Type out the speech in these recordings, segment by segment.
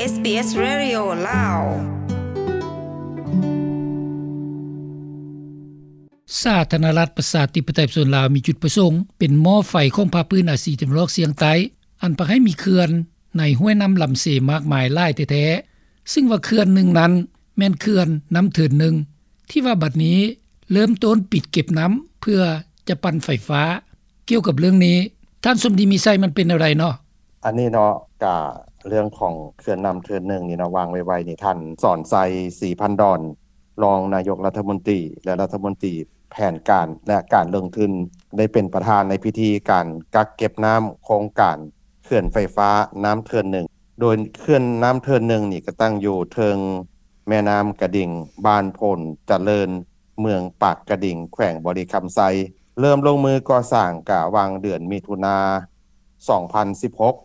ເອສບີເອສ ເຣດິໂອ ລາວ. ສາທາລະນະລັດ ປະຊາທິປະໄຕ ປະຊາຊົນລາວ ມີຈຸດປະສົງເປັນໝໍ້ໄຟຂອງພາກພື້ນອາຊີຕາເວັນອອກສຽງໃຕ້ ອັນພາກໃຫ້ມີເຂື່ອນໃນຫ້ວຍນ້ຳລຳເຊມາກມາຍຫຼາຍແທ້ໆ, ຊຶ່ງວ່າເຂື່ອນໜຶ່ງນັ້ນແມ່ນເຂື່ອນນ້ຳເທີນໜຶ່ງ ທີ່ວ່າບັດນີ້ເລີ່ມຕົ້ນປິດເກັບນ້ຳເພື່ອຈະປັ່ນໄຟຟ້າ. ກ່ຽວກັບເລື່ອງນີ້ ທ່ານສົມດີ ມີໄຊ ມັນເປັນແນວໃດເນາະ? ອັນນີ້ເນາະ ກະເລື່ອງຂອງເຂື່ອນນ້ຳເທີນໜຶ່ງນີ້ເນາະ ວ່າງໄວໆນີ້ ທ່ານ ສອນໄຊ ສີພັນດອນ ຮອງນາຍົກລັດຖະມົນຕີ ແລະ ລັດຖະມົນຕີແຜນການ ແລະ ການລົງທຶນ ໄດ້ເປັນປະທານໃນພິທີການກັກເກັບນ້ຳໂຄງການເຂື່ອນໄຟຟ້ານ້ຳເທີນໜຶ່ງ ໂດຍເຂື່ອນນ້ຳເທີນໜຶ່ງນີ້ ກະຕັ້ງຢູ່ເທິງແມ່ນ້ຳກະດິງ ບ້ານໂພນຈະເລີນ ເມືອງປາກກະດິງ ແຂວງບໍລິຄຳໄຊ. ເລີ່ມລົງມືກໍ່ສ້າງກະຫວ່າງເດືອນມິຖຸນາ ສອງພັນສິບຫົກ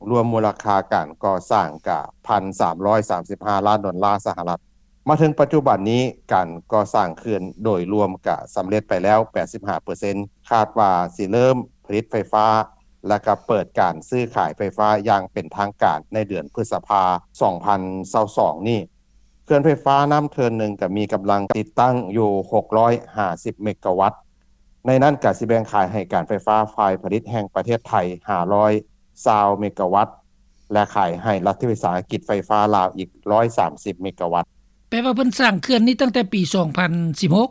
ລວມມູນລະຄ່າການກໍ່ສ້າງກະ ໜຶ່ງພັນສາມຮ້ອຍສາມສິບຫ້າລ້ານໂດນລາສະຫະລັດ. ມາເຖິງປັດຈຸບັນນີ້ ການກໍ່ສ້າງເຂື່ອນໂດຍລວມກະສຳເລັດໄປແລ້ວ ແປດສິບຫ້າເປີເຊັນ ຄາດວ່າຊິເລີ່ມຜະລິດໄຟຟ້າ ແລະ ກະເປີດການຊື້ຂາຍໄຟຟ້າຢ່າງເປັນທາງການໃນເດືອນພຶດສະພາ ສອງພັນຊາວສອງນີ້. ເຂື່ອນໄຟຟ້ານ້ຳເທີນໜຶ່ງກະມີກຳລັງຕິດຕັ້ງຢູ່ ຫົກຮ້ອຍຫ້າສິບເມກາວັດ, ໃນນັ້ນກະຊິແບ່ງຂາຍໃຫ້ການໄຟຟ້າຝ່າຍຜະລິດແຫ່ງປະເທດໄທ ຫ້າຮ້ອຍຊາວເມກາວັດ ແລະ ຂາຍໃຫ້ລັດວິສາຫະກິດໄຟຟ້າລາວອີກ ຮ້ອຍສາມສິບເມກາວັດ. ແປວ່າເພິ່ນສ້າງເຂື່ອນນີ້ຕັ້ງແຕ່ປີ ສອງພັນສິບຫົກ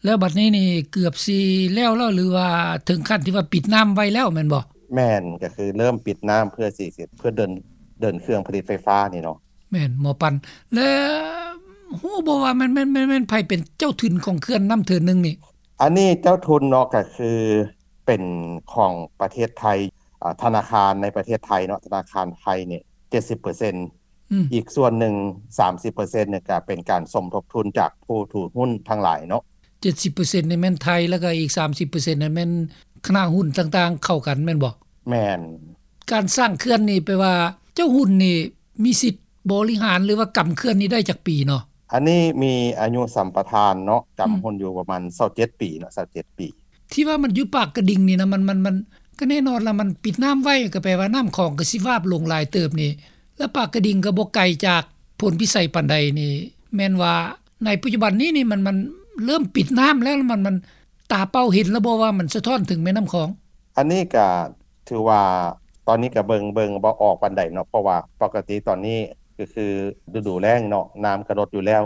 ແລ້ວບັດນີ້ນີ້ເກືອບຊິແລ້ວແລ້ວ ຫຼືວ່າເຖິງຂັ້ນທີ່ວ່າປິດນ້ຳໄວ້ແລ້ວແມ່ນບໍ່? ແມ່ນ, ກະຄືເລີ່ມປິດນ້ຳເພື່ອຊິ ເພື່ອເດີນ ເດີນເຄື່ອງຜະລິດໄຟຟ້ານີ້ເນາະ. ແມ່ນ ໝໍ້ປັ່ນ. ແລະ ຮູ້ບໍ່ວ່າແມ່ນ ແມ່ນ ແມ່ນ ແມ່ນໃຜເປັນເຈົ້າທຶນຂອງເຂື່ອນນ້ຳເທີນໜຶ່ງນີ້? ອັນນີ້ເຈົ້າທຶນເນາະ ກະຄືເປັນຂອງປະເທດໄທ, ອາ, ທະນາຄານໃນປະເທດໄທເນາະ, ທະນາຄານໄທນີ້ ເຈັດສິບເປີເຊັນ ອືມ ອີກສ່ວນໜຶ່ງ ສາມສິບເປີເຊັນນີ້ ກະເປັນການສົມທົບທຶນຈາກຜູ້ຖືຫຸ້ນທັງຫຼາຍເນາະ. ເຈັດສິບເປີເຊັນນີ້ແມ່ນໄທ ແລ້ວກະອີກ ສາມສິບເປີເຊັນນັ້ນແມ່ນຄະນະຫຸ້ນຕ່າງໆເຂົ້າກັນແມ່ນບໍ່? ແມ່ນ. ການສ້າງເຂື່ອນນີ້ ແປວ່າເຈົ້າຫຸ້ນນີ້ ມີສິດບໍລິຫານ ຫຼືວ່າກຳເຂື່ອນນີ້ໄດ້ຈັກປີເນາະ? ອັນນີ້ມີອາຍຸສຳປະທານເນາະ, ກຳຫຸ້ນຢູ່ປະມານຊາວເຈັດປີເນາະ, ຊາວເຈັດປີ. ທີ່ວ່າມັນຢູ່ປາກກະດິງນີ້ນະ ມັນ ມັນ ມັນ ກະແນ່ນອນລະ ມັນປິດນ້ຳໄວ້ ກະແປວ່ານ້ຳຂອງກະຊິວາບລົງຫຼາຍເຕີບນີ້ ລະປາກກະດິງກະບໍ່ໄກຈາກໂພນພິໄສປານໃດນີ້ ແມ່ນວ່າໃນປັດຈຸບັນນີ້ນີ້ ມັນ ມັນເລີ່ມປິດນ້ຳແລ້ວ ມັນ ມັນຕາເປົ່າເຫັນລະບໍ່ວ່າມັນສະທ້ອນເຖິງແມ່ນ້ຳຂອງ? ອັນນີ້ກະ ຖືວ່າຕອນນີ້ກະເບິ່ງ ເບິ່ງບໍ່ອອກປານໃດເນາະ ເພາະວ່າປົກກະຕິຕອນນີ້ກະຄືລະດູແລ້ງເນາະ ນ້ຳກະລົດຢູ່ແລ້ວ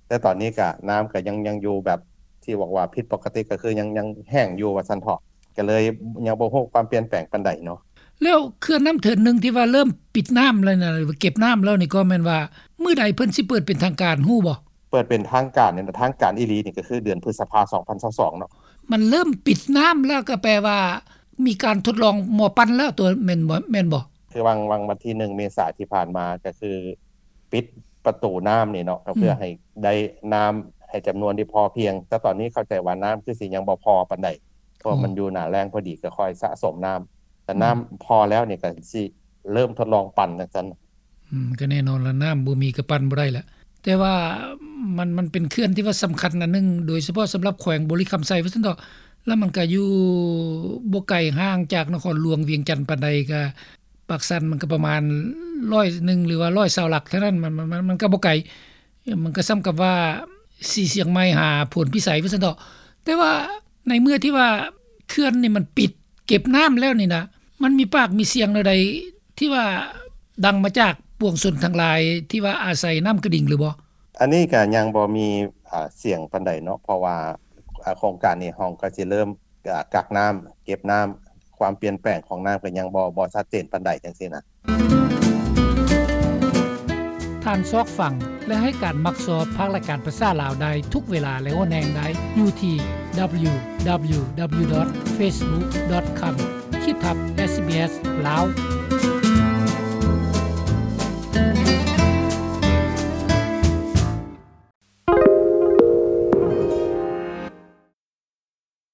ແຕ່ຕອນນີ້ກະນ້ຳກະຍັງ ຍັງຢູ່ແບບທີ່ບອກວ່າຜິດປົກກະຕິ ກະຄືຍັງ ຍັງແຫ້ງຢູ່ວ່າຊັ້ນເຖາະ ກະເລີຍຍັງບໍ່ຮູ້ຄວາມປ່ຽນແປງປານໃດເນາະ. ແລ້ວເຂື່ອນນ້ຳເທີນໜຶ່ງທີ່ວ່າເລີ່ມປິດນ້ຳແລ້ວນະ ຫຼືວ່າເກັບນ້ຳແລ້ວນີ້ ກໍແມ່ນວ່າມື້ໃດເພິ່ນຊິເປີດເປັນທາງການ ຮູ້ບໍ່? ເປີດເປັນທາງການນີ້ນະ ທາງການອີ່ຫຼີນີ້ກະຄືເດືອນພຶດສະພາ ສອງພັນຊາວສອງເນາະ. ມັນເລີ່ມປິດນ້ຳແລ້ວ ກະແປວ່າມີການທົດລອງໝໍ້ປັ່ນແລ້ວຕົວະ ແມ່ນບໍ່ ແມ່ນບໍ່? ຄືຫວ່າງ ຫວ່າງວັນທີໜຶ່ງເມສາທີ່ຜ່ານມາ ກະຄືປິດປະຕູນ້ຳນີ້ເນາະ ກະເພື່ອ ອືມ ໃຫ້ໄດ້ນ້ຳໃຫ້ຈຳນວນທີ່ພໍພຽງ ແຕ່ຕອນນີ້ເຂົ້າໃຈວ່ານ້ຳຄືຊິຍັງບໍ່ພໍປານໃດ ເພາະວ່າ ໂອ້ ມັນຢູ່ໜ້າແລ້ງພໍດີ ກະຄ່ອຍສະສົມນ້ຳ ແຕ່ ອືມ ນ້ຳພໍແລ້ວນີ້ກະຊິເລີ່ມທົດລອງປັ່ນຈັ່ງຊັ້ນ. ອືມ ກະແນ່ນອນລະ ນ້ຳບໍ່ມີກະປັ່ນບໍ່ໄດ້ລະ ແຕ່ວ່າມັນ ມັນເປັນເຂື່ອນທີ່ວ່າສຳຄັນອັນໜຶ່ງ ໂດຍສະເພາະສຳລັບແຂວງບໍລິຄຳໄຊວ່າຊັ້ນເຖາະ ລະມັນກະຢູ່ບໍ່ໄກຫ່າງຈາກນະຄອນຫຼວງວຽງຈັນປານໃດ ກະປາກຊັນມັນກະປະມານຮ້ອຍໜຶ່ງ ຫຼືວ່າຮ້ອຍຊາວຫຼັກເທົ່ານັ້ນ ມັນ ມັນ ມັນ ມັນກະບໍ່ໄກ ມັນກະສ່ຳກັບວ່າສີຊຽງໃໝ່ຫາໂພນພິໄສວ່າຊັ້ນເຖາະ ແຕ່ວ່າໃນເມື່ອທີ່ວ່າເຂື່ອນນີ້ມັນປິດເກັບນ້ຳແລ້ວນີ້ນະ ມັນມີປາກມີສຽງແນວໃດ ທີ່ວ່າດັງມາຈາກປວງຊົນທັງຫຼາຍທີ່ວ່າອາໄສນ້ຳກະດິງຫຼືບໍ່? ອັນນີ້ກະຍັງບໍ່ມີ ອາ ສຽງປານໃດເນາະ ເພາະວ່າ ອາ ໂຄງການນີ້ເຮົາກະຊິເລີ່ມ ອາ ກັກນ້ຳ ເກັບນ້ຳ ຄວາມປ່ຽນແປງຂອງນ້ຳກະຍັງບໍ່ ບໍ່ຊັດເຈນປານໃດຈັ່ງຊີ້ນະ. ທ່ານຊອກຟັງ ແລະ ໃຫ້ການມັກຊອບພາກລາຍການພາສາລາວໄດ້ທຸກເວລາ ແລະ ໂອແນງໄດ້ຢູ່ທີ່ www.facebook.com/sbslao.